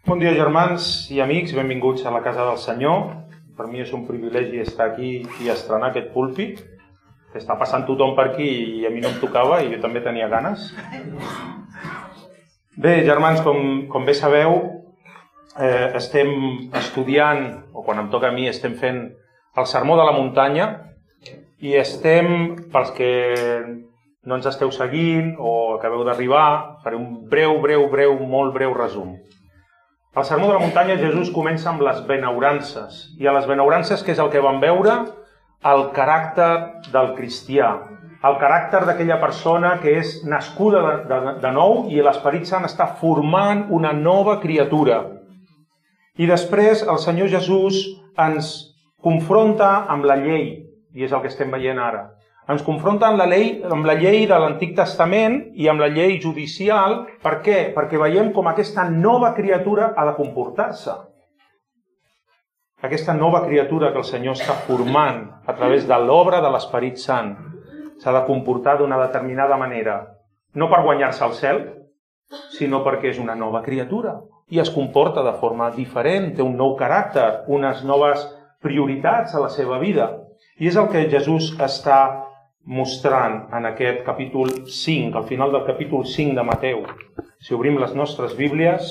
Bon dia, germans i amics, benvinguts a la casa del Senyor. Per mi és un privilegi estar aquí i estrenar aquest púlpit. Està passant tothom per aquí i a mi no em tocava i jo també tenia ganes. Bé, germans, com bé sabeu, estem estudiant, o quan em toca a mi, estem fent el Sermó de la Muntanya i estem, pels que no ens esteu seguint o acabeu d'arribar, faré un molt breu resum. Al Sermó de la Muntanya Jesús comença amb les benaurances. I a les benaurances, què és el que vam veure? El caràcter del cristià. El caràcter d'aquella persona que és nascuda de nou i l'Esperit Sant està formant una nova criatura. I després el Senyor Jesús ens confronta amb la llei, i és el que estem veient ara. Ens confronta amb la llei de l'Antic Testament i amb la llei judicial. Per què? Perquè veiem com aquesta nova criatura ha de comportar-se. Aquesta nova criatura que el Senyor està formant a través de l'obra de l'Esperit Sant s'ha de comportar d'una determinada manera. No per guanyar-se el cel, sinó perquè és una nova criatura i es comporta de forma diferent, té un nou caràcter, unes noves prioritats a la seva vida. I és el que Jesús està mostrant en aquest capítol 5, al final del capítol 5 de Mateu. Si obrim les nostres Bíblies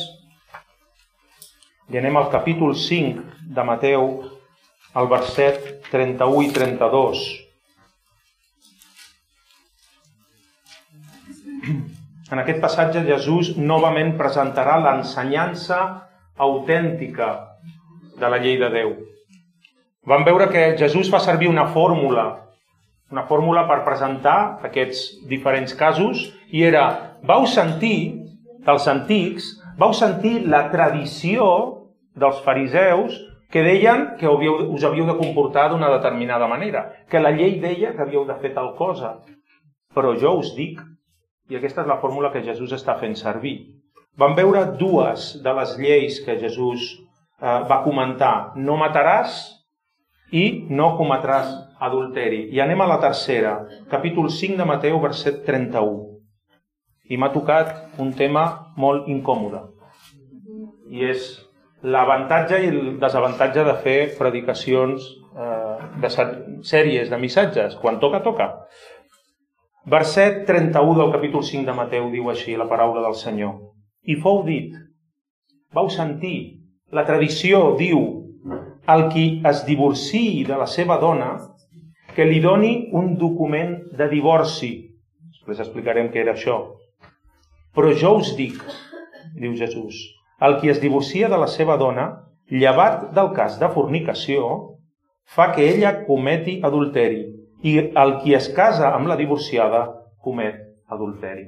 i anem al capítol 5 de Mateu, al verset 31 i 32. En aquest passatge Jesús novament presentarà l'ensenyança autèntica de la llei de Déu. Vam veure que Jesús fa servir una fórmula per presentar aquests diferents casos, i era, vau sentir dels antics, vau sentir la tradició dels fariseus que deien que us havíeu de comportar d'una determinada manera, que la llei deia que havíeu de fer tal cosa. Però jo us dic, i aquesta és la fórmula que Jesús està fent servir. Vam veure dues de les lleis que Jesús va comentar. No mataràs i no cometràs adulteri. I anem a la tercera, capítol 5 de Mateu, verset 31. I m'ha tocat un tema molt incòmode. I és l'avantatge i el desavantatge de fer predicacions de sèries, de missatges. Quan toca, toca. Verset 31 del capítol 5 de Mateu diu així la paraula del Senyor. I fou dit, vau sentir, la tradició diu, el qui es divorciï de la seva dona, que li doni un document de divorci. Després explicarem què era això. Però jo us dic, diu Jesús, el qui es divorcia de la seva dona, llevat del cas de fornicació, fa que ella cometi adulteri, i el qui es casa amb la divorciada comet adulteri.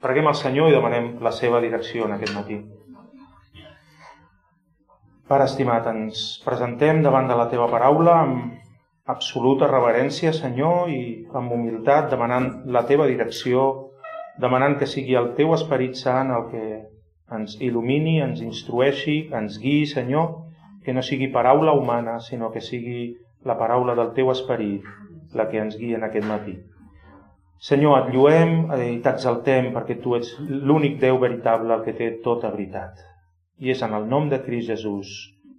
Preguem al Senyor i demanem la seva direcció en aquest matí. Pare estimat, ens presentem davant de la teva paraula amb absoluta reverència, Senyor, i amb humilitat, demanant la teva direcció, demanant que sigui el teu Esperit Sant el que ens il·lumini, ens instrueixi, ens guiï, Senyor, que no sigui paraula humana, sinó que sigui la paraula del teu Esperit la que ens guia en aquest matí. Senyor, et lluem i t'exaltem perquè tu ets l'únic Déu veritable, el que té tota veritat. I és en el nom de Crist Jesús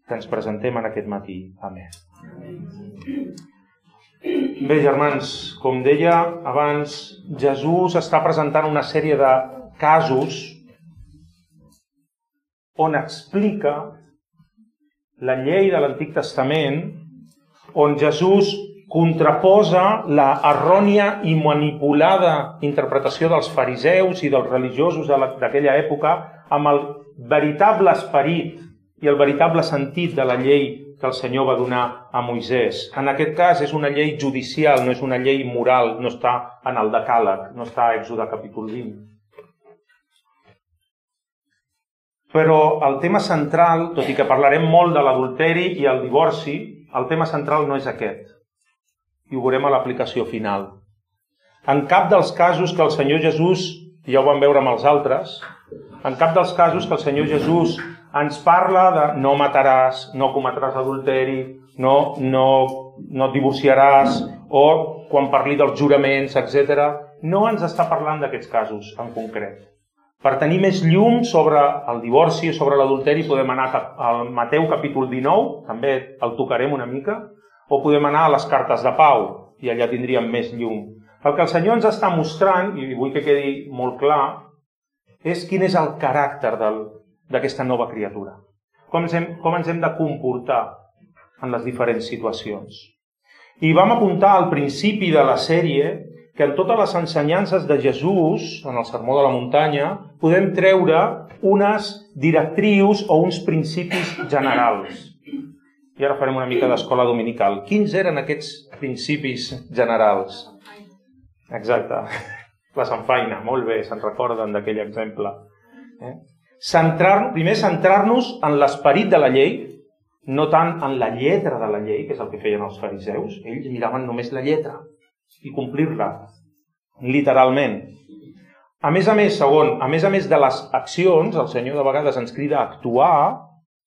que ens presentem en aquest matí. Amén. Bé, germans, com deia abans, Jesús està presentant una sèrie de casos on explica la llei de l'Antic Testament, on Jesús contraposa la errònia i manipulada interpretació dels fariseus i dels religiosos d'aquella època amb el veritable esperit i el veritable sentit de la llei que el Senyor va donar a Moisès. En aquest cas és una llei judicial, no és una llei moral, no està en el Decàleg, no està a Èxode capítol 20. Però el tema central, tot i que parlarem molt de l'adulteri i el divorci, el tema central no és aquest. I ho veurem a l'aplicació final. En cap dels casos que el Senyor Jesús, ja ho vam veure amb els altres, en cap dels casos que el Senyor Jesús ens parla de no mataràs, no cometràs adulteri, no et divorciaràs, o quan parli dels juraments, etc., no ens està parlant d'aquests casos en concret. Per tenir més llum sobre el divorci o sobre l'adulteri podem anar al Mateu capítol 19, també el tocarem una mica, o podem anar a les cartes de Pau, i allà tindríem més llum. El que el Senyor ens està mostrant, i vull que quedi molt clar, és quin és el caràcter d'aquesta nova criatura. Com ens hem de comportar en les diferents situacions. I vam apuntar al principi de la sèrie que en totes les ensenyances de Jesús, en el Sermó de la Muntanya, podem treure unes directrius o uns principis generals. I ara farem una mica d'escola dominical. Quins eren aquests principis generals? Exacte. La Samfaina, molt bé, se'n recorden d'aquell exemple. Primer, centrar-nos en l'esperit de la llei, no tant en la lletra de la llei, que és el que feien els fariseus. Ells miraven només la lletra i complir-la, literalment. A més, segon, a més de les accions, el Senyor de vegades ens crida a actuar,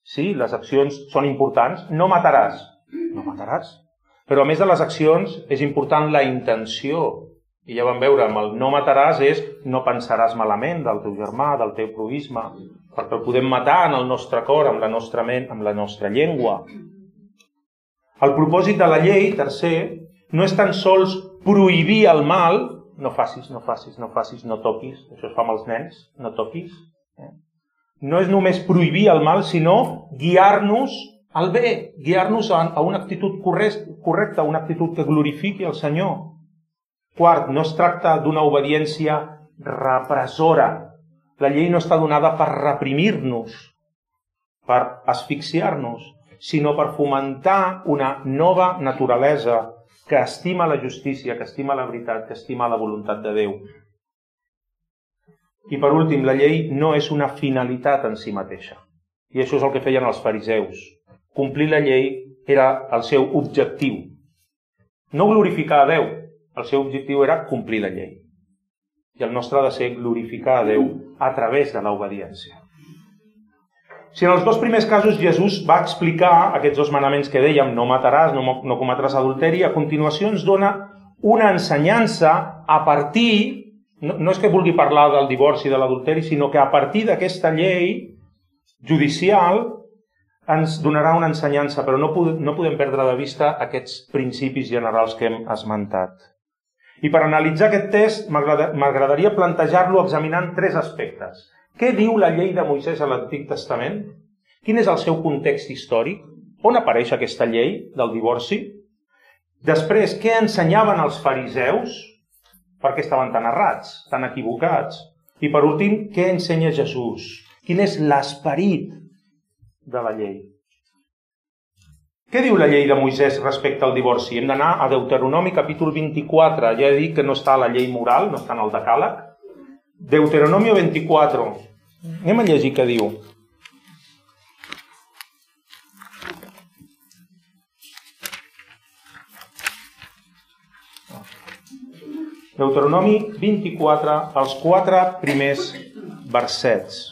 sí, les accions són importants, no mataràs, però a més de les accions és important la intenció. I ja vam veure, amb el no mataràs és no pensaràs malament del teu germà, del teu proïsme, perquè el podem matar en el nostre cor, amb la nostra ment, amb la nostra llengua. El propòsit de la llei, tercer, no és tan sols prohibir el mal, no facis, no toquis, això es fa amb els nens, no toquis. No és només prohibir el mal, sinó guiar-nos al bé, guiar-nos a una actitud correcta, una actitud que glorifiqui el Senyor. Quart, no es tracta d'una obediència repressora. La llei no està donada per reprimir-nos, per asfixiar-nos, sinó per fomentar una nova naturalesa que estima la justícia, que estima la veritat, que estima la voluntat de Déu. I per últim, la llei no és una finalitat en si mateixa. I això és el que feien els fariseus. Complir la llei era el seu objectiu. No glorificar a Déu, el seu objectiu era complir la llei. I el nostre ha de ser glorificar a Déu a través de l'obediència. Si en els dos primers casos Jesús va explicar aquests dos manaments que dèiem, no mataràs, no cometràs adulteri, a continuació ens dona una ensenyança a partir, no és que vulgui parlar del divorci i de l'adulteri, sinó que a partir d'aquesta llei judicial ens donarà una ensenyança, però no podem perdre de vista aquests principis generals que hem esmentat. I per analitzar aquest text m'agradaria plantejar-lo examinant tres aspectes. Què diu la llei de Moisès a l'Antic Testament? Quin és el seu context històric? On apareix aquesta llei del divorci? Després, què ensenyaven els fariseus? Per què estaven tan errats, tan equivocats? I per últim, què ensenya Jesús? Quin és l'esperit de la llei? Què diu la llei de Moisès respecte al divorci? Hem d'anar a Deuteronomi capítol 24. Ja he dit que no està a la llei moral, no està en el decàleg. Deuteronomi 24. Anem a llegir què diu. Deuteronomi 24, els 4 primers versets.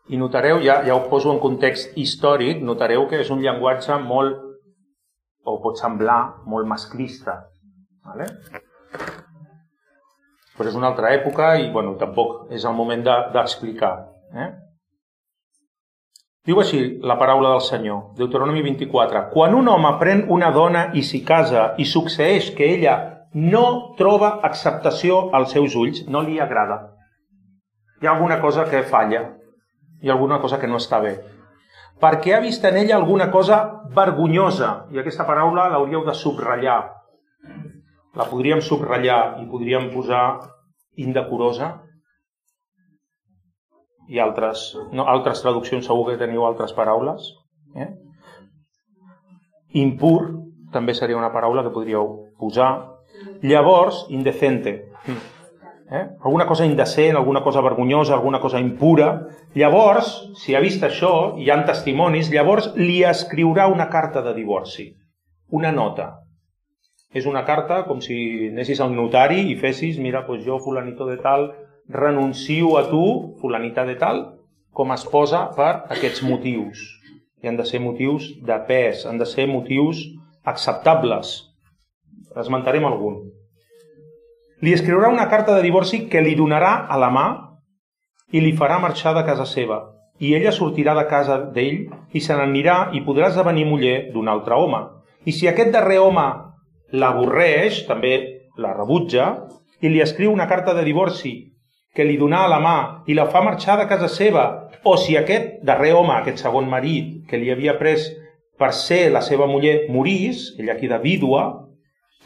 I notareu, ja ho poso en context històric, notareu que és un llenguatge molt, o pot semblar, molt masclista. Vale? Però és una altra època i tampoc és el moment d'explicar. Diu així la paraula del Senyor, Deuteronomi 24. Quan un home pren una dona i s'hi casa i succeeix que ella no troba acceptació als seus ulls, no li agrada. Hi ha alguna cosa que falla. Hi ha alguna cosa que no està bé. Perquè ha vist en ella alguna cosa vergonyosa. I aquesta paraula l'hauríeu de subratllar. La podríem subratllar i podríem posar indecorosa. I altres traduccions segur que teniu altres paraules. Impur també seria una paraula que podríeu posar. Llavors, indecente. Alguna cosa indecent, alguna cosa vergonyosa, alguna cosa impura. Llavors, si ha vist això, hi ha testimonis, llavors li escriurà una carta de divorci, una nota. És una carta com si anessis al notari i fessis, mira, jo, fulanito de tal, renuncio a tu, fulanita de tal, com a esposa per aquests motius. i han de ser motius de pes, han de ser motius acceptables. Esmentarem algun. Li escriurà una carta de divorci que li donarà a la mà i li farà marxar de casa seva. I ella sortirà de casa d'ell i se n'anirà i podrà esdevenir muller d'un altre home. I si aquest darrer home l'avorreix, també la rebutja, i li escriu una carta de divorci que li donà a la mà i la fa marxar de casa seva, o si aquest darrer home, aquest segon marit que li havia pres per ser la seva muller, morís, ella queda vídua,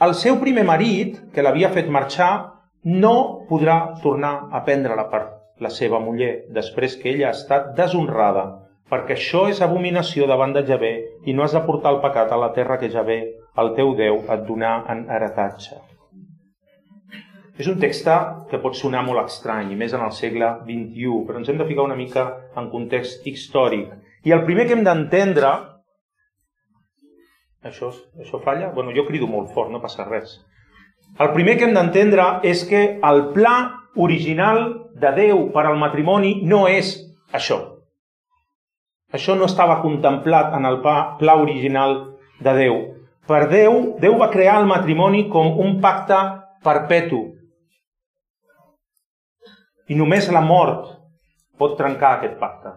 el seu primer marit, que l'havia fet marxar, no podrà tornar a prendre-la per la seva muller, després que ella ha estat deshonrada, perquè això és abominació davant de Javé i no has de portar el pecat a la terra que Javé, el teu Déu, et donà en heretatge. És un text que pot sonar molt estrany, i més en el segle XXI, però ens hem de ficar una mica en context històric. I el primer que hem d'entendre... Això falla? Bueno, jo crido molt fort, no passa res. El primer que hem d'entendre és que el pla original de Déu per al matrimoni no és això. Això no estava contemplat en el pla original de Déu. Per Déu va crear el matrimoni com un pacte perpetu. I només la mort pot trencar aquest pacte.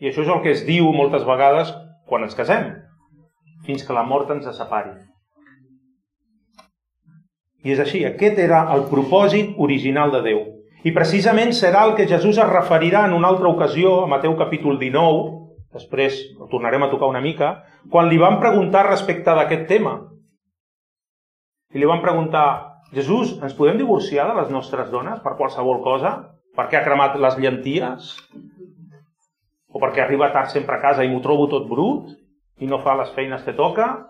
I això és el que es diu moltes vegades quan ens casem, fins que la mort ens separi. I és així, aquest era el propòsit original de Déu. I precisament serà el que Jesús es referirà en una altra ocasió, a Mateu capítol 19, després ho tornarem a tocar una mica, quan li van preguntar respecte d'aquest tema. I li van preguntar: Jesús, ens podem divorciar de les nostres dones per qualsevol cosa? Perquè ha cremat les llenties? O perquè arriba tard sempre a casa i m'ho trobo tot brut? I no fa les feines que toca?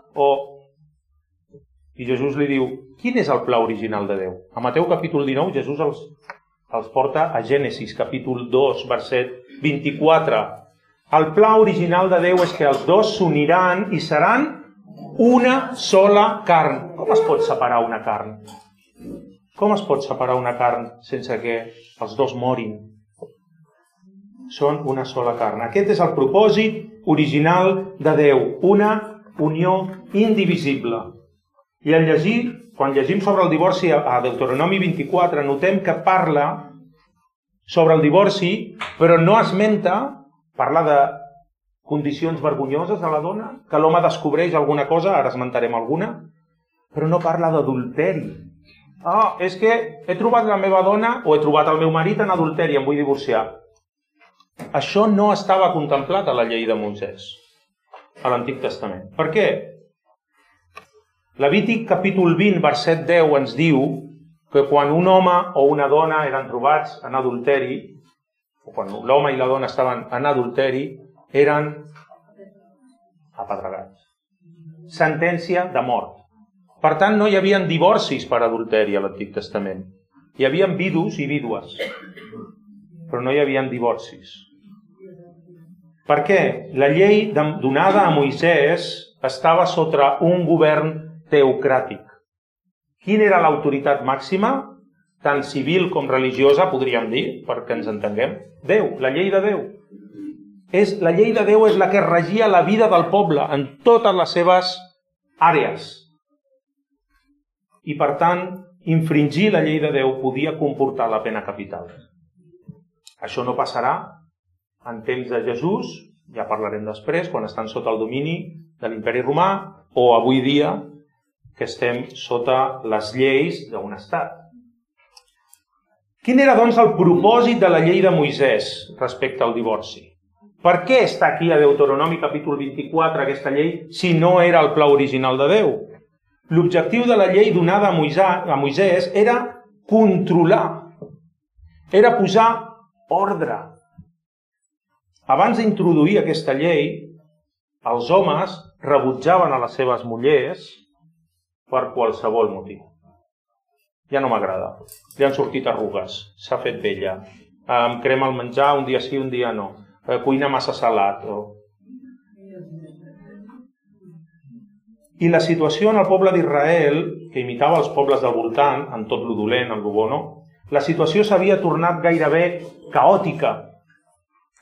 I Jesús li diu: quin és el pla original de Déu? A Mateu capítol 19 Jesús els porta a Gènesis capítol 2, verset 24. El pla original de Déu és que els dos s'uniran i seran una sola carn. Com es pot separar una carn? Com es pot separar una carn sense que els dos morin? Són una sola carn. Aquest és el propòsit original de Déu, una unió indivisible. I quan llegim sobre el divorci a Deuteronomi 24, notem que parla sobre el divorci, però no esmenta, parla de condicions vergonyoses de la dona, que l'home descobreix alguna cosa, ara esmentarem alguna, però no parla d'adulteri. És que he trobat la meva dona o he trobat el meu marit en adulteri, em vull divorciar. Això no estava contemplat a la llei de Moisès, a l'Antic Testament. Per què? Levític capítol 20, verset 10 ens diu que quan un home o una dona eren trobats en adulteri, o quan l'home i la dona estaven en adulteri, eren apedregats. Sentència de mort. Per tant, no hi havia divorcis per adulteri a l'Antic Testament. Hi havia vidus i vídues, però no hi havia divorcis. Per què? La llei donada a Moisès estava sota un govern teocràtic. Quina era l'autoritat màxima? Tant civil com religiosa, podríem dir, perquè ens entenguem. Déu, la llei de Déu. La llei de Déu és la que regia la vida del poble en totes les seves àrees. I, per tant, infringir la llei de Déu podia comportar la pena capital. Això no passarà en temps de Jesús, ja parlarem després, quan estan sota el domini de l'imperi romà, o avui dia, que estem sota les lleis d'un estat. Quin era, doncs, el propòsit de la llei de Moisès respecte al divorci? Per què està aquí a Deuteronomi capítol 24 aquesta llei si no era el pla original de Déu? L'objectiu de la llei donada a Moisès era controlar, era posar ordre. Abans d'introduir aquesta llei, els homes rebutjaven a les seves mullers per qualsevol motiu. Ja no m'agrada, li han sortit arrugues, s'ha fet vella, em crema el menjar, un dia sí, un dia no, cuina massa salat. I la situació en el poble d'Israel, que imitava els pobles del voltant, en tot lo dolent, en lo bo no, la situació s'havia tornat gairebé caòtica.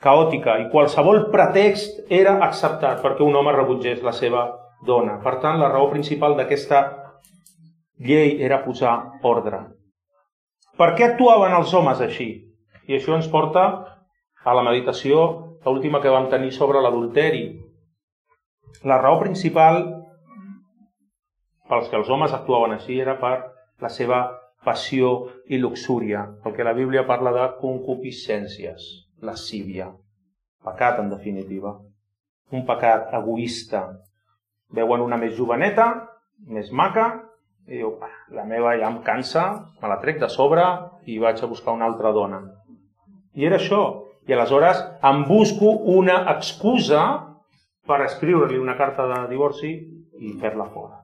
caòtica, i qualsevol pretext era acceptat perquè un home rebutgés la seva dona. Per tant, la raó principal d'aquesta llei era posar ordre. Per què actuaven els homes així? I això ens porta a la meditació, l'última que vam tenir sobre l'adulteri. La raó principal pels que els homes actuaven així era per la seva passió i luxúria, el que la Bíblia parla de concupiscències, lascívia, pecat en definitiva, un pecat egoista. Veuen una més joveneta, més maca, i diu, la meva ja em cansa, me la trec de sobre i vaig a buscar una altra dona. I era això. I aleshores em busco una excusa per escriure-li una carta de divorci i fer-la fora.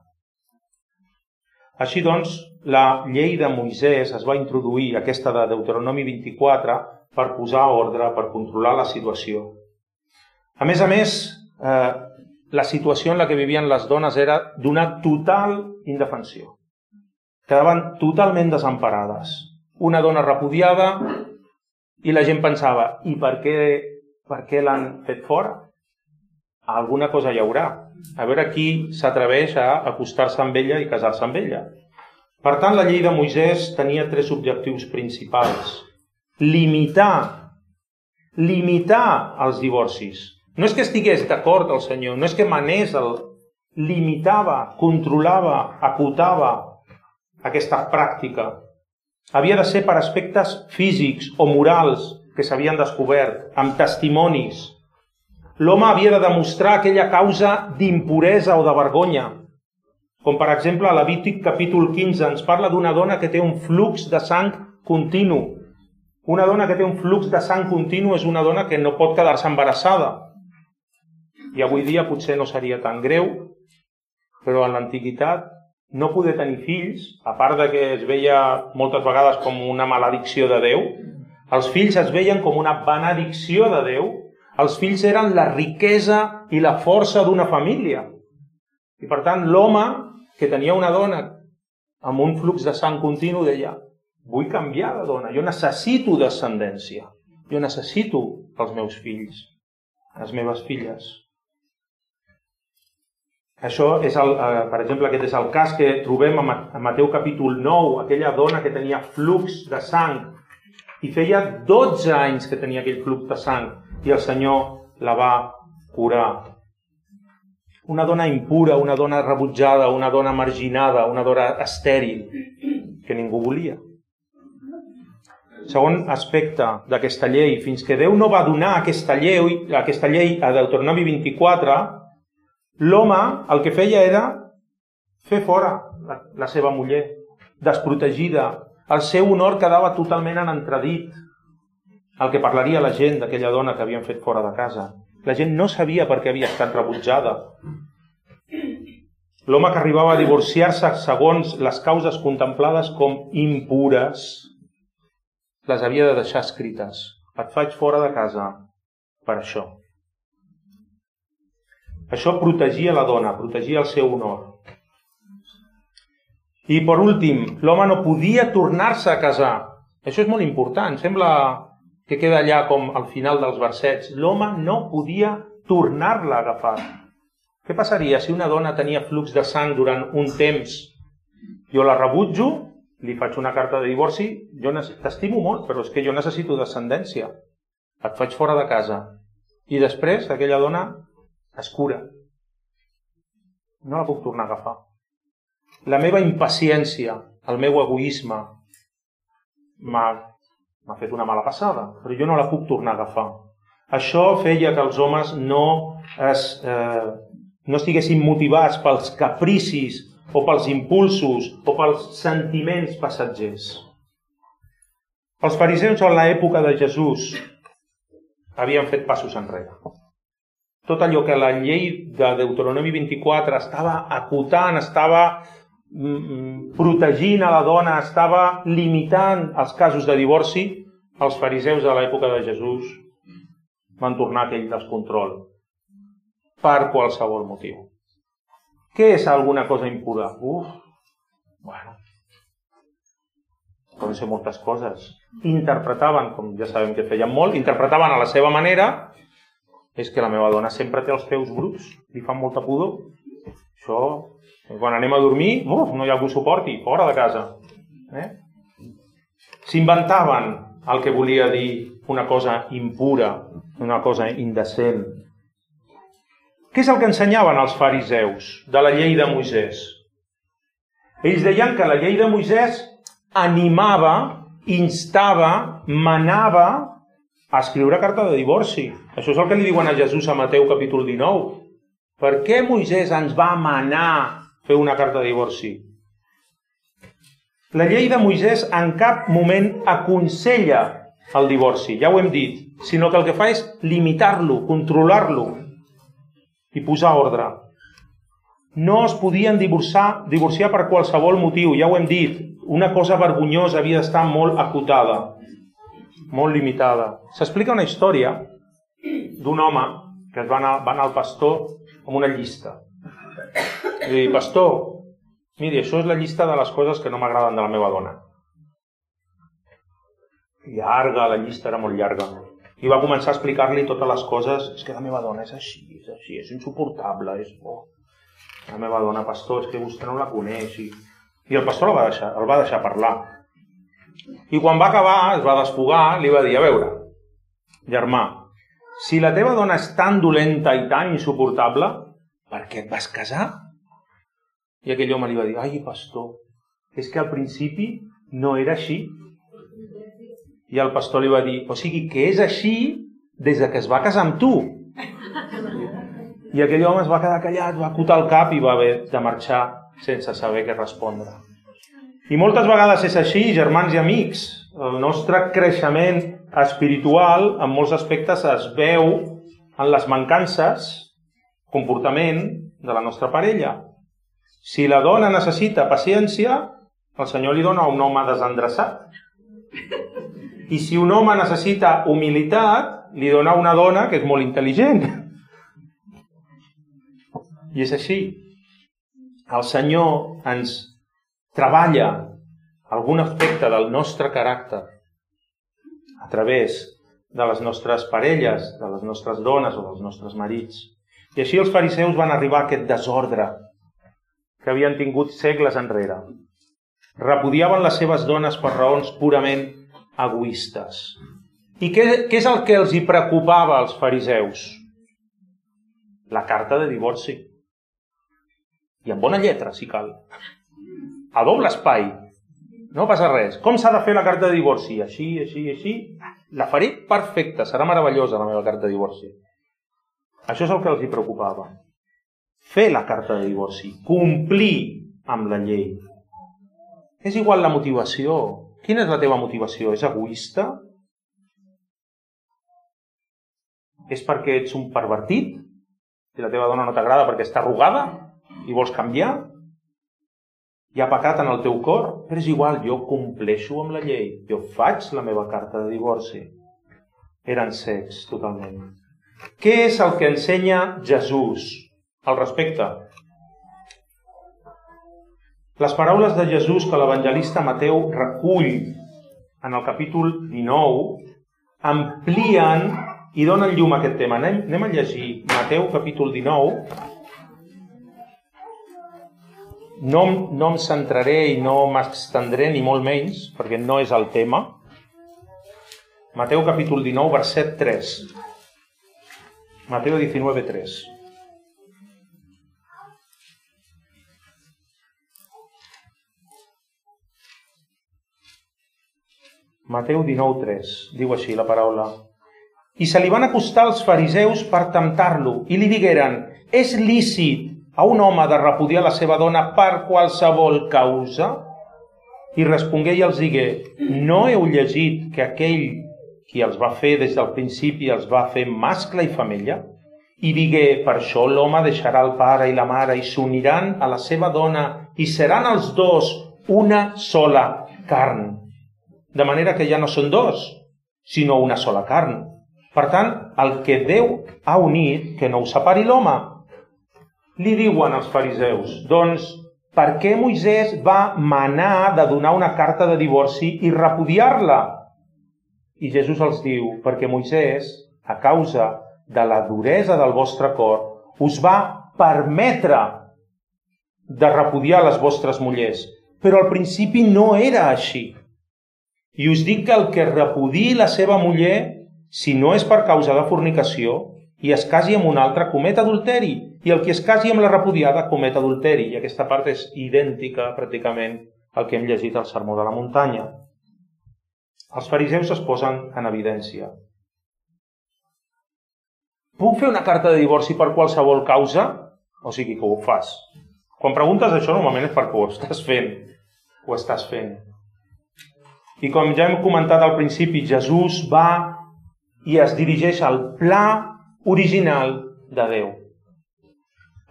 Així doncs, la llei de Moisès es va introduir, aquesta de Deuteronomi 24, per posar ordre, per controlar la situació. A més, la situació en la que vivien les dones era d'una total indefensió. Quedaven totalment desemparades. Una dona repudiada i la gent pensava, i per què l'han fet fora? Alguna cosa hi haurà. A veure qui s'atreveix a acostar-se amb ella i casar-se amb ella. Per tant, la llei de Moisès tenia 3 objectius principals. Limitar els divorcis. No és que estigués d'acord el Senyor, no és que manés, limitava, controlava, acotava aquesta pràctica. Havia de ser per aspectes físics o morals que s'havien descobert, amb testimonis. L'home havia de demostrar aquella causa d'impuresa o de vergonya. Com per exemple, a Levític capítol 15 ens parla d'una dona que té un flux de sang continu. Una dona que té un flux de sang continu és una dona que no pot quedar-se embarassada. I avui dia potser no seria tan greu, però en l'antiguitat no poder tenir fills, a part de que es veia moltes vegades com una maledicció de Déu, els fills es veien com una benedicció de Déu. Els fills eren la riquesa i la força d'una família. I per tant, l'home que tenia una dona amb un flux de sang continu deia, vull canviar de dona, jo necessito descendència, jo necessito els meus fills, les meves filles. Això és, per exemple, aquest és el cas que trobem a Mateu capítol 9, aquella dona que tenia flux de sang, i feia 12 anys que tenia aquell flux de sang, i el Senyor la va curar. Una dona impura, una dona rebutjada, una dona marginada, una dona estèril, que ningú volia. Segon aspecte d'aquesta llei, fins que Déu no va donar aquesta llei a Deuteronomi 24, l'home el que feia era fer fora la seva muller, desprotegida. El seu honor quedava totalment en entredit. El que parlaria la gent d'aquella dona que havien fet fora de casa. La gent no sabia per què havia estat rebutjada. L'home que arribava a divorciar-se segons les causes contemplades com impures, les havia de deixar escrites. Et faig fora de casa per això. Això protegia la dona, protegia el seu honor. I per últim, l'home no podia tornar-se a casar. Això és molt important, sembla que queda allà com al final dels versets. L'home no podia tornar-la a agafar. Què passaria si una dona tenia flux de sang durant un temps? Jo la rebutjo, li faig una carta de divorci, jo t'estimo molt, però és que jo necessito descendència. Et faig fora de casa. I després aquella dona es cura. No la puc tornar a agafar. La meva impaciència, el meu egoisme, m'ha fet una mala passada, però jo no la puc tornar a agafar. Això feia que els homes no estiguessin motivats pels capricis o pels impulsos o pels sentiments passatgers. Els fariseus en l'època de Jesús havien fet passos enrere. Tot allò que la llei de Deuteronomi 24 estava acotant, estava protegint a la dona, estava limitant els casos de divorci, els fariseus de l'època de Jesús van tornar a aquell descontrol per qualsevol motiu. Què és alguna cosa impura? Bueno, poden ser moltes coses. interpretaven, com ja sabem que feien molt, interpretaven a la seva manera, és que la meva dona sempre té els peus bruts, li fan molta pudor. Això, quan anem a dormir, no hi ha algú suporti, fora de casa. S'inventaven el que volia dir una cosa impura, una cosa indecent. Què és el que ensenyaven els fariseus de la llei de Moisès? Ells deien que la llei de Moisès animava, instava, manava a escriure carta de divorci. Això és el que li diuen a Jesús a Mateu capítol 19. Per què Moisès ens va manar fer una carta de divorci? La llei de Moisès en cap moment aconsella el divorci, ja ho hem dit, sinó que el que fa és limitar-lo, controlar-lo i posar ordre. No es podien divorciar per qualsevol motiu, ja ho hem dit. Una cosa vergonyosa havia d'estar molt acotada, molt limitada. S'explica una història d'un home que va anar al pastor amb una llista. I li diu, pastor, miri, això és la llista de les coses que no m'agraden de la meva dona. Llarga, la llista era molt llarga. I va començar a explicar-li totes les coses. És que la meva dona és així, és insuportable, és bo. La meva dona, pastor, és que vostè no la coneix. I el pastor el va deixar parlar. I quan va acabar, es va desfogar, li va dir, a veure, germà, si la teva dona és tan dolenta i tan insuportable, per què et vas casar? I aquell home li va dir, ai, pastor, és que al principi no era així. I el pastor li va dir, o sigui que és així des que es va casar amb tu. I aquell home es va quedar callat, va acotar el cap i va haver de marxar sense saber què respondre. I moltes vegades és així, germans i amics. El nostre creixement espiritual, en molts aspectes, es veu en les mancances, comportament de la nostra parella. Si la dona necessita paciència, el Senyor li dona un home desendreçat. I si un home necessita humilitat, li dona una dona que és molt intel·ligent. I és així. El Senyor ens treballa algun aspecte del nostre caràcter a través de les nostres parelles, de les nostres dones o dels nostres marits. I així els fariseus van arribar a aquest desordre que havien tingut segles enrere. Repudiaven les seves dones per raons purament egoistes. I què és el que els hi preocupava als fariseus? La carta de divorci. I amb bona lletra, si cal. A doble espai. No passa res. Com s'ha de fer la carta de divorci? Així, així, així. La faré perfecta. Serà meravellosa la meva carta de divorci. Això és el que els hi preocupava. Fer la carta de divorci. Complir amb la llei. És igual la motivació. Quina és la teva motivació? És egoista? És perquè ets un pervertit? Si la teva dona no t'agrada perquè està arrugada i vols canviar? Hi ha pecat en el teu cor? Però és igual, jo compleixo amb la llei. Jo faig la meva carta de divorci. Eren cecs, totalment. Què és el que ensenya Jesús al respecte? Les paraules de Jesús que l'evangelista Mateu recull en el capítol 19 amplien i donen llum a aquest tema. Anem a llegir Mateu capítol 19. No em centraré i no m'estendré ni molt menys, perquè no és el tema. Mateu capítol 19, verset 3. Mateu 19, 3. Mateu 19, 3. Diu així la paraula. I se li van acostar els fariseus per temptar-lo i li digueren, és lícit a un home de repudiar la seva dona per qualsevol causa? I respongué i els digué, no heu llegit que aquell qui els va fer des del principi els va fer mascle i femella? I digué, per això l'home deixarà el pare i la mare i s'uniran a la seva dona i seran els dos una sola carn. De manera que ja no són dos, sinó una sola carn. Per tant, el que Déu ha unit, que no ho separi l'home. Li diuen els fariseus, doncs, per què Moisès va manar de donar una carta de divorci i repudiar-la? I Jesús els diu, perquè Moisès, a causa de la duresa del vostre cor, us va permetre de repudiar les vostres mullers. Però al principi no era així. I us dic que el que repudiï la seva muller, si no és per causa de fornicació, i es casi amb un altre, comet adulteri. I el que es casi amb la repudiada, comet adulteri. I aquesta part és idèntica, pràcticament, al que hem llegit al Sermó de la Muntanya. Els fariseus es posen en evidència. Puc fer una carta de divorci per qualsevol causa? O sigui que ho fas. Quan preguntes això, normalment és perquè ho estàs fent. Ho estàs fent. I com ja hem comentat al principi, Jesús va i es dirigeix al pla original de Déu.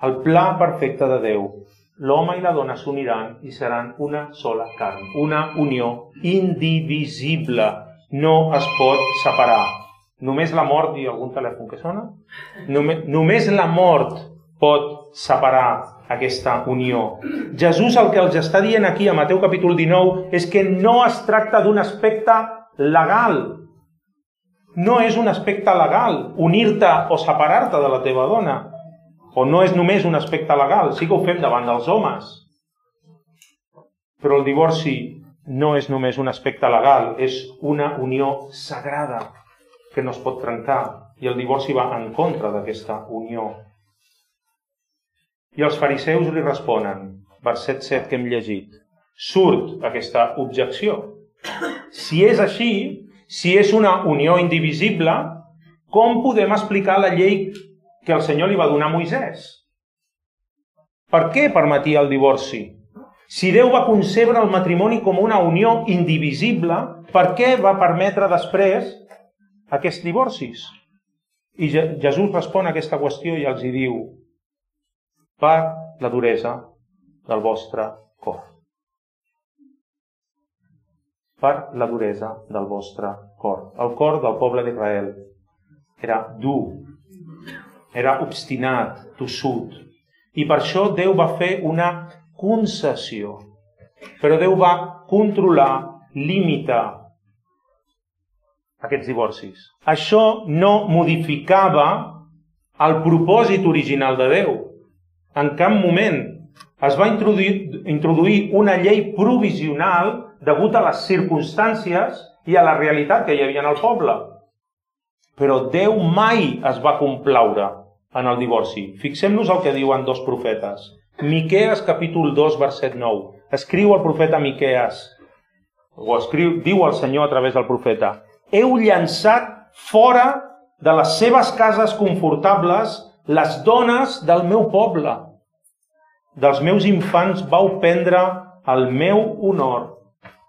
El pla perfecte de Déu. L'home i la dona s'uniran i seran una sola carn. Una unió indivisible. No es pot separar. Només la mort, i algun telèfon que sona? Només la mort pot separar aquesta unió. Jesús el que els està dient aquí a Mateu capítol 19 és que no es tracta d'un aspecte legal. No és un aspecte legal unir-te o separar-te de la teva dona. O no és només un aspecte legal, sí que ho fem davant dels homes. Però el divorci no és només un aspecte legal, és una unió sagrada que no es pot trencar. I el divorci va en contra d'aquesta unió. I els fariseus li responen, verset 7 que hem llegit, surt aquesta objecció. Si és així, si és una unió indivisible, com podem explicar la llei que el Senyor li va donar a Moisès? Per què permetia el divorci? Si Déu va concebre el matrimoni com una unió indivisible, per què va permetre després aquests divorcis? I Jesús respon a aquesta qüestió i els hi diu, per la duresa del vostre cor. Per la duresa del vostre cor. El cor del poble d'Israel era dur, era obstinat, tossut. I per això Déu va fer una concessió. Però Déu va controlar, limitar aquests divorcis. Això no modificava el propòsit original de Déu. En cap moment es va introduir una llei provisional degut a les circumstàncies i a la realitat que hi havia en el poble. Però Déu mai es va complaure en el divorci. Fixem-nos el que diuen dos profetes. Miquees, capítol 2, verset 9. Escriu el profeta Miquees, diu el Senyor a través del profeta, heu llançat fora de les seves cases confortables les dones del meu poble. Dels meus infants vau prendre el meu honor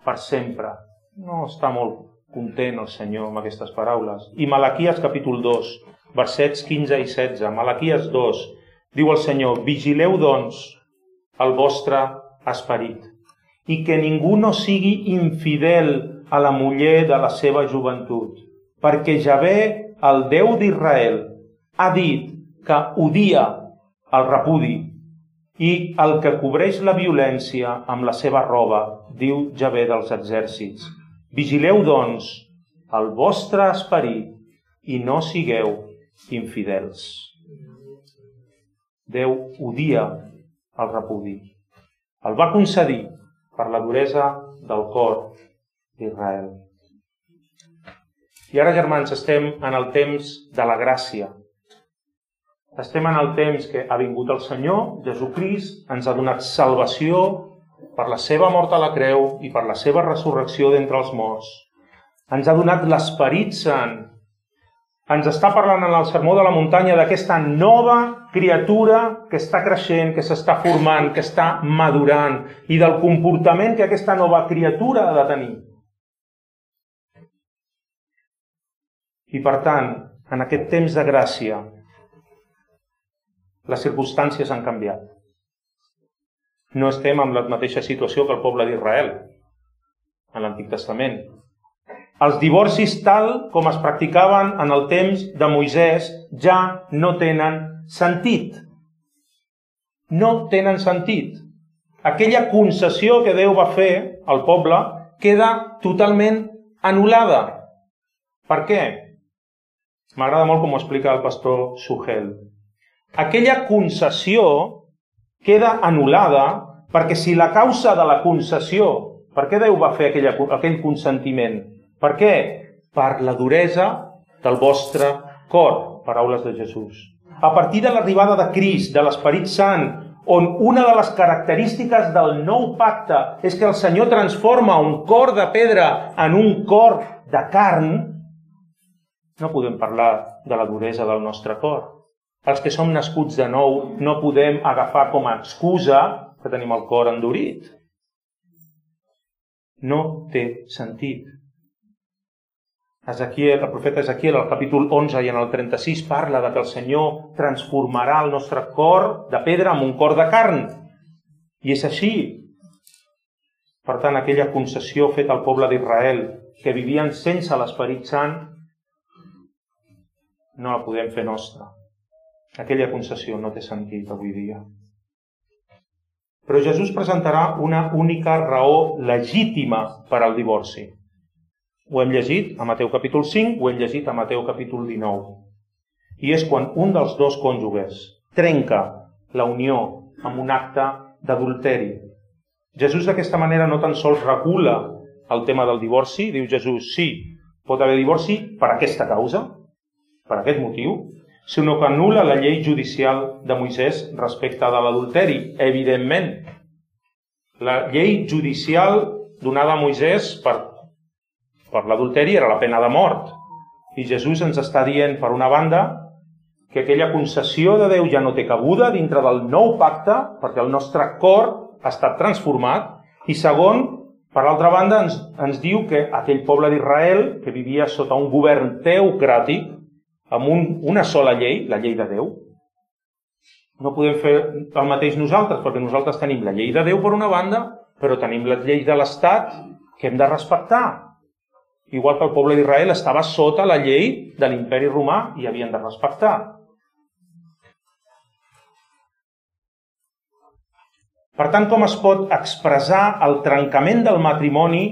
per sempre. No està molt content el Senyor amb aquestes paraules. I Malaquies capítol 2, versets 15 i 16. Malaquies 2, diu el Senyor, vigileu doncs el vostre esperit i que ningú no sigui infidel a la muller de la seva joventut, perquè Javé, el Déu d'Israel, ha dit que odia el repudi i el que cobreix la violència amb la seva roba, diu Javé dels exèrcits. Vigileu, doncs, el vostre esperit i no sigueu infidels. Déu odia el repudi. El va concedir per la duresa del cor d'Israel. I ara, germans, estem en el temps de la gràcia. Estem en el temps que ha vingut el Senyor, Jesucrist, ens ha donat salvació per la seva mort a la creu i per la seva resurrecció d'entre els morts. Ens ha donat l'Esperit Sant. Ens està parlant en el Sermó de la Muntanya d'aquesta nova criatura que està creixent, que s'està formant, que està madurant i del comportament que aquesta nova criatura ha de tenir. I per tant, en aquest temps de gràcia, les circumstàncies han canviat. No estem en la mateixa situació que el poble d'Israel en l'Antic Testament. Els divorcis tal com es practicaven en el temps de Moisès ja no tenen sentit. No tenen sentit. Aquella concessió que Déu va fer al poble queda totalment anul·lada. Per què? M'agrada molt com ho explica el pastor Suhel. Aquella concessió queda anul·lada perquè si la causa de la concessió, per què Déu va fer aquell consentiment? Per què? Per la duresa del vostre cor, paraules de Jesús. A partir de l'arribada de Crist, de l'Esperit Sant, on una de les característiques del nou pacte és que el Senyor transforma un cor de pedra en un cor de carn, no podem parlar de la duresa del nostre cor. Els que som nascuts de nou no podem agafar com a excusa que tenim el cor endurit. No té sentit. El profeta Ezequiel, al capítol 11 i en el 36, parla de que el Senyor transformarà el nostre cor de pedra en un cor de carn. I és així. Per tant, aquella concessió feta al poble d'Israel, que vivien sense l'Esperit Sant, no la podem fer nostra. Aquella concessió no té sentit avui dia. Però Jesús presentarà una única raó legítima per al divorci. Ho hem llegit a Mateu capítol 5, ho hem llegit a Mateu capítol 19. I és quan un dels dos cònjuges trenca la unió amb un acte d'adulteri. Jesús d'aquesta manera no tan sols regula el tema del divorci, diu Jesús, sí, pot haver divorci per aquesta causa, per aquest motiu, sinó que anul·la la llei judicial de Moisès respecte de l'adulteri, evidentment. La llei judicial donada a Moisès per l'adulteri era la pena de mort. I Jesús ens està dient, per una banda, que aquella concessió de Déu ja no té cabuda dintre del nou pacte, perquè el nostre cor ha estat transformat, i segon, per altra banda, ens diu que aquell poble d'Israel, que vivia sota un govern teocràtic, amb una sola llei, la llei de Déu, no podem fer el mateix nosaltres, perquè nosaltres tenim la llei de Déu per una banda, però tenim les lleis de l'Estat que hem de respectar. Igual que el poble d'Israel estava sota la llei de l'imperi romà i havien de respectar. Per tant, com es pot expressar el trencament del matrimoni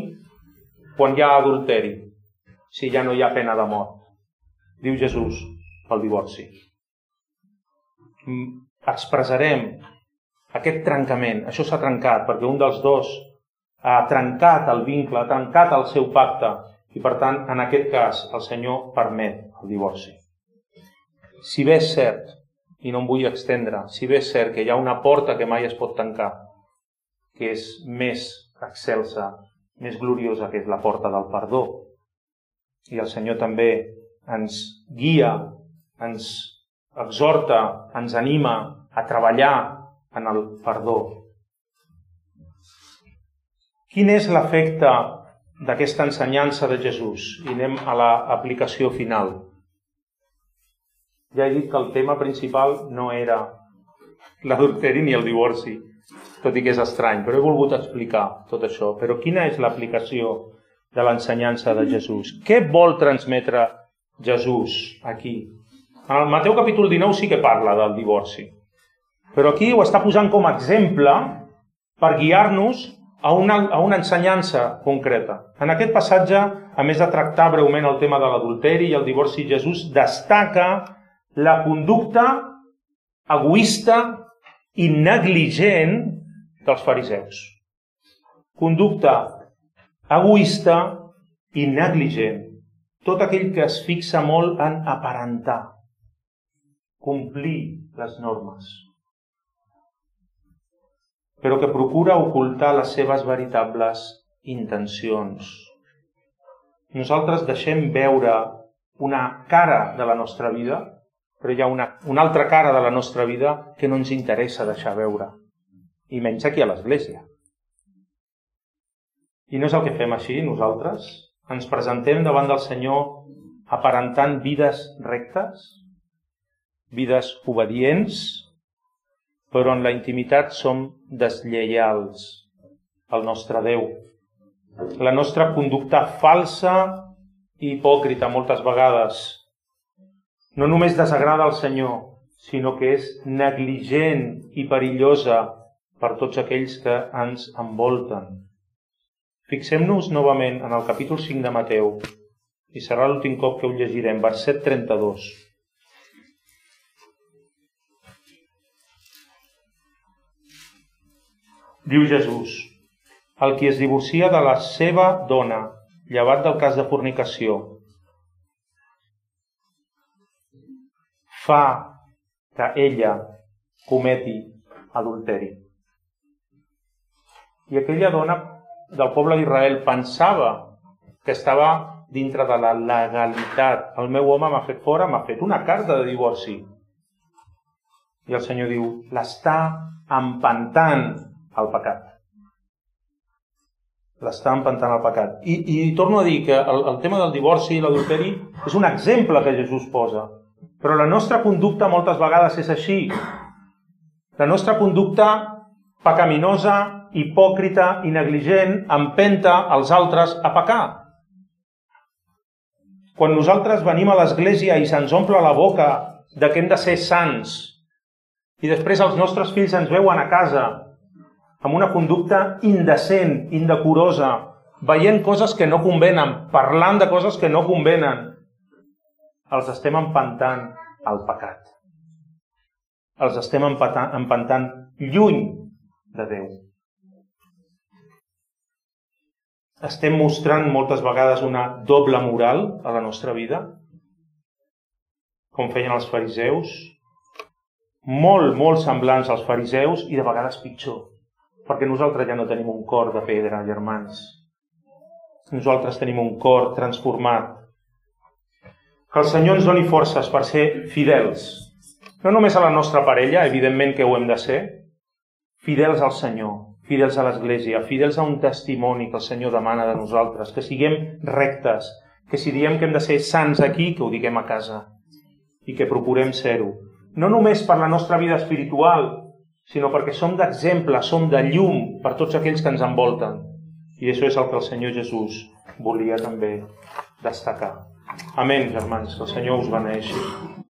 quan hi ha adulteri, si ja no hi ha pena de mort? Diu Jesús, pel divorci. Expressarem aquest trencament. Això s'ha trencat perquè un dels dos ha trencat el vincle, ha trencat el seu pacte i, per tant, en aquest cas, el Senyor permet el divorci. Si bé és cert, i no em vull extendre, si bé és cert que hi ha una porta que mai es pot tancar, que és més excelsa, més gloriosa, que és la porta del perdó, i el Senyor també ens guia, ens exhorta, ens anima a treballar en el perdó. Quin és l'efecte d'aquesta ensenyança de Jesús? I anem a l'aplicació final. Ja he dit que el tema principal no era l'adulteri ni el divorci, tot i que és estrany, però he volgut explicar tot això. Però quina és l'aplicació de l'ensenyança de Jesús? Què vol transmetre Jesús aquí? En el Mateu capítol 19 sí que parla del divorci, però aquí ho està posant com a exemple per guiar-nos a una ensenyança concreta. En aquest passatge, a més de tractar breument el tema de l'adulteri i el divorci, Jesús destaca la conducta egoista i negligent dels fariseus. Conducta egoista i negligent. Tot aquell que es fixa molt en aparentar, complir les normes, però que procura ocultar les seves veritables intencions. Nosaltres deixem veure una cara de la nostra vida, però hi ha una altra cara de la nostra vida que no ens interessa deixar veure, i menys aquí a l'Església. I no és el que fem així, nosaltres. Ens presentem davant del Senyor aparentant vides rectes, vides obedients, però en la intimitat som deslleials al nostre Déu. La nostra conducta falsa i hipòcrita moltes vegades no només desagrada al Senyor, sinó que és negligent i perillosa per tots aquells que ens envolten. Fixem-nos novament en el capítol 5 de Mateu i serà l'últim cop que ho llegirem, verset 32. Diu Jesús: el qui es divorcia de la seva dona, llevat del cas de fornicació, fa que ella cometi adulteri. I aquella dona del poble d'Israel pensava que estava dintre de la legalitat. El meu home m'ha fet fora, m'ha fet una carta de divorci. I el Senyor diu, l'està empantant al pecat. L'està empantant al pecat. I torno a dir que el tema del divorci i l'adulteri és un exemple que Jesús posa. Però la nostra conducta moltes vegades és així. La nostra conducta pecaminosa, hipòcrita i negligent empenta els altres a pecar. Quan nosaltres venim a l'església i se'ns omple la boca de que hem de ser sants i després els nostres fills ens veuen a casa amb una conducta indecent, indecorosa, veient coses que no convenen, parlant de coses que no convenen, els estem empantant al pecat. Els estem empantant lluny de Déu. Estem mostrant moltes vegades una doble moral a la nostra vida, com feien els fariseus, molt semblants als fariseus i de vegades pitjor, perquè nosaltres ja no tenim un cor de pedra, germans. Nosaltres tenim un cor transformat. Que el Senyor ens doni forces per ser fidels, no només a la nostra parella, evidentment que ho hem de ser, fidels al Senyor, fidels a l'Església, fidels a un testimoni que el Senyor demana de nosaltres, que siguem rectes, que si diem que hem de ser sants aquí, que ho diguem a casa i que procurem ser-ho. No només per la nostra vida espiritual, sinó perquè som d'exemple, som de llum per tots aquells que ens envolten. I això és el que el Senyor Jesús volia també destacar. Amén, germans, que el Senyor us beneeixi.